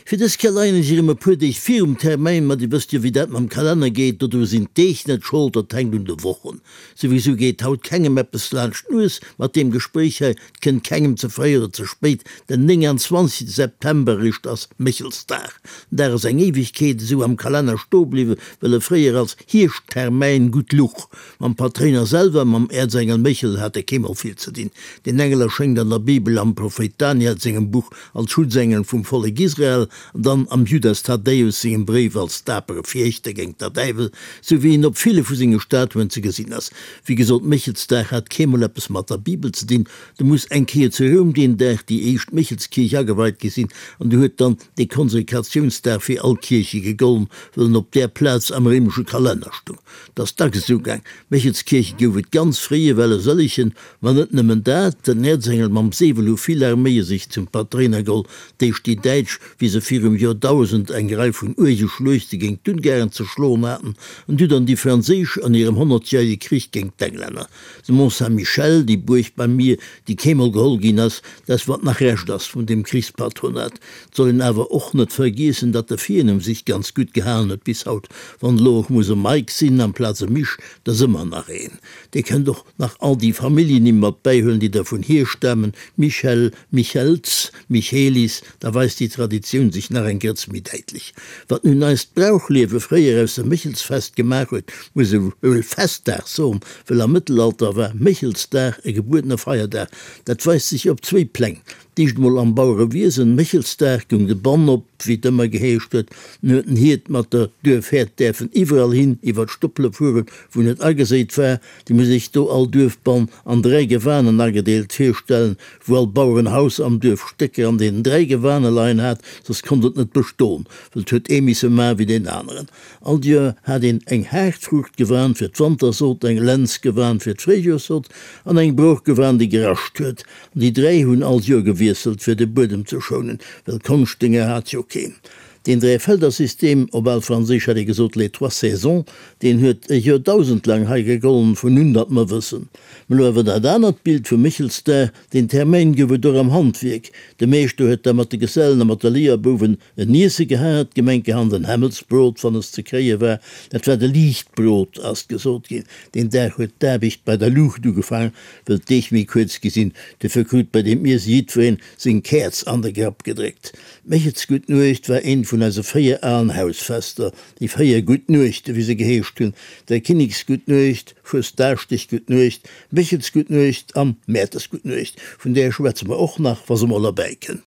Fir dës Kéier leien ech erëm e puer Deeg virum Termäin, ma Dir wësst jo wéi dat mam Kalenner geet, dodru sinn d'Deeg net Schold, dat hänkt un de Wochen. Souwisou geet haut kengem eppes laanscht d'Nues mat deem Gespréich hei, 't kënnt kengem ze fréi oder ze spéit, den 29 September eréischt ass Méchelsdag. Den Dag ass eng Éiwegkeet esou am Kalenner stoe bliwwen, well e fréier als Hierschttermäin gutt luch. Mam Patréiner selwer, mam Äerzengel Méchel, hat e keemol vill ze dinn. Deen Engel erschéngt an der Bibel am Prophéit Daniel sengem Buch als Schutzengel vum Vollek Israel an dann am Judas Thaddäus sengem Bréif als dapere Fiechter géint der Däiwel, sou wéi en op ville vu senge Statuen ze gesinn ass. Wéi gesot, Méchelsdag hat keemol eppes mat der Bibel ze dinn. Du muss eng Kéier zu Roum deen Dag déi éischt Méchelskierch ageweit gi sinn an du huet dann dee Konsekratiounsdag fir all Kierche gegollen, well en op där Plaz am réimesche Kalenner stung. 't ass dacks esou gaang. Méchelskierche gouf et ganz fréi ewell e sëllegen, ma net nëmmen dat, den Äerzengel mam Säbel hu vill Arméie sech zum Patréiner geholl, d'éischt déi Däitsch, wéi se virum Joerdausend eng Rei vun uerge Schluechte géint d'Ungaren ze schloen haten, an du dann déi Franséisch an hirem honnertjärege Krich géint d'Englänner. De Mont Saint-Michel, déi Buerg beim Mier, déi keemol geholl ginn ass, dat wat nach Rescht ass vun deem Krichspatronat. 't soll een awer och net vergiessen, datt de Virnumm sich ganz gutt gehalen huet bis haut. Wann elo och muss e Mike sinn amplaz e Misch, 't ass ëmmer nach een. Dir kënnt och nach all déi Familljennimm mat bäihuelen, déi dervun hierstamen, Michel, Michels, Michelis, da weist déi Traditioun sech nach eng Grëtz méi däitlech. Wat nun eist Brauchliewe fréier aus dem Méchelsfest gemaach huet, muss e wuel Festdag soen, well am Mëttelalter war Méchelsdag e gebuedene Feierdag. Dat weist sech op zwéi Pläng, D'éischt emol am Bauerewiesen, Méchelsdag goung de Bann op, wéi et ëmmer geheescht huet. Nun huet den Hiert mat der Duerfhäerd däerfen iwwerall hin iwwer d'Stoppele fueren, wou net ageséit war. Déi muss sech do all Duerfbann an 3 Gewanen agedeelt virstellen, wou all Bauerenhaus am Duerf Stécker an deenen 3 Gewane leien hat, soss konnt et net beston, well et huet ee misse man wéi deen aneren. All Joer hat een eng Haartfruuchtgewan fir d'Wantersot, eng Lenzgewan fir d'Fréijoerssot an eng Broochgewan, déi gerascht huet. An déi 3 hunn all Joer gewiesselt, fir de Buedem ze schounen, well Konschtdénger hat jo keen. Deen Dräifeldersystem, op al Franséisch hätt ee gesot les trois saisons, deen huet e Joerdausend laang hei gegollen, vun un datt mer wëssen. Mä lo awer dat anert Bild vum Méchelsdag, deen Termäin gouf et och am Handwierk. De Meeschter huet da mat de Gesellen a mat de Léierbouwen en Iesse gehat, gemenkehand en Hämmelsbrot, wann es ze kréie war. Dat war de Liichtbrot, ass gesot ginn. Deen Dag huet d'Aarbecht bei der Luucht ugefaangen, wëll d'Deeg méi kuerz gi sinn. Dofir krut bei deem Iesse jiddwereen seng Käerz an de Grapp gedréckt. D'Méchelsgutt Nuecht war eent vun eise 4 alen Hausfester, déi 4 Gutt Nuechte wéi se geheescht hunn, Dräikinneksgutt Nuecht, Fuesdaaschdeggutt Nuecht, Méchelsgutt Nuecht an Mäertersgutt Nuecht, vun där schwätze mer och nach, wa se mol erbäi kënnt.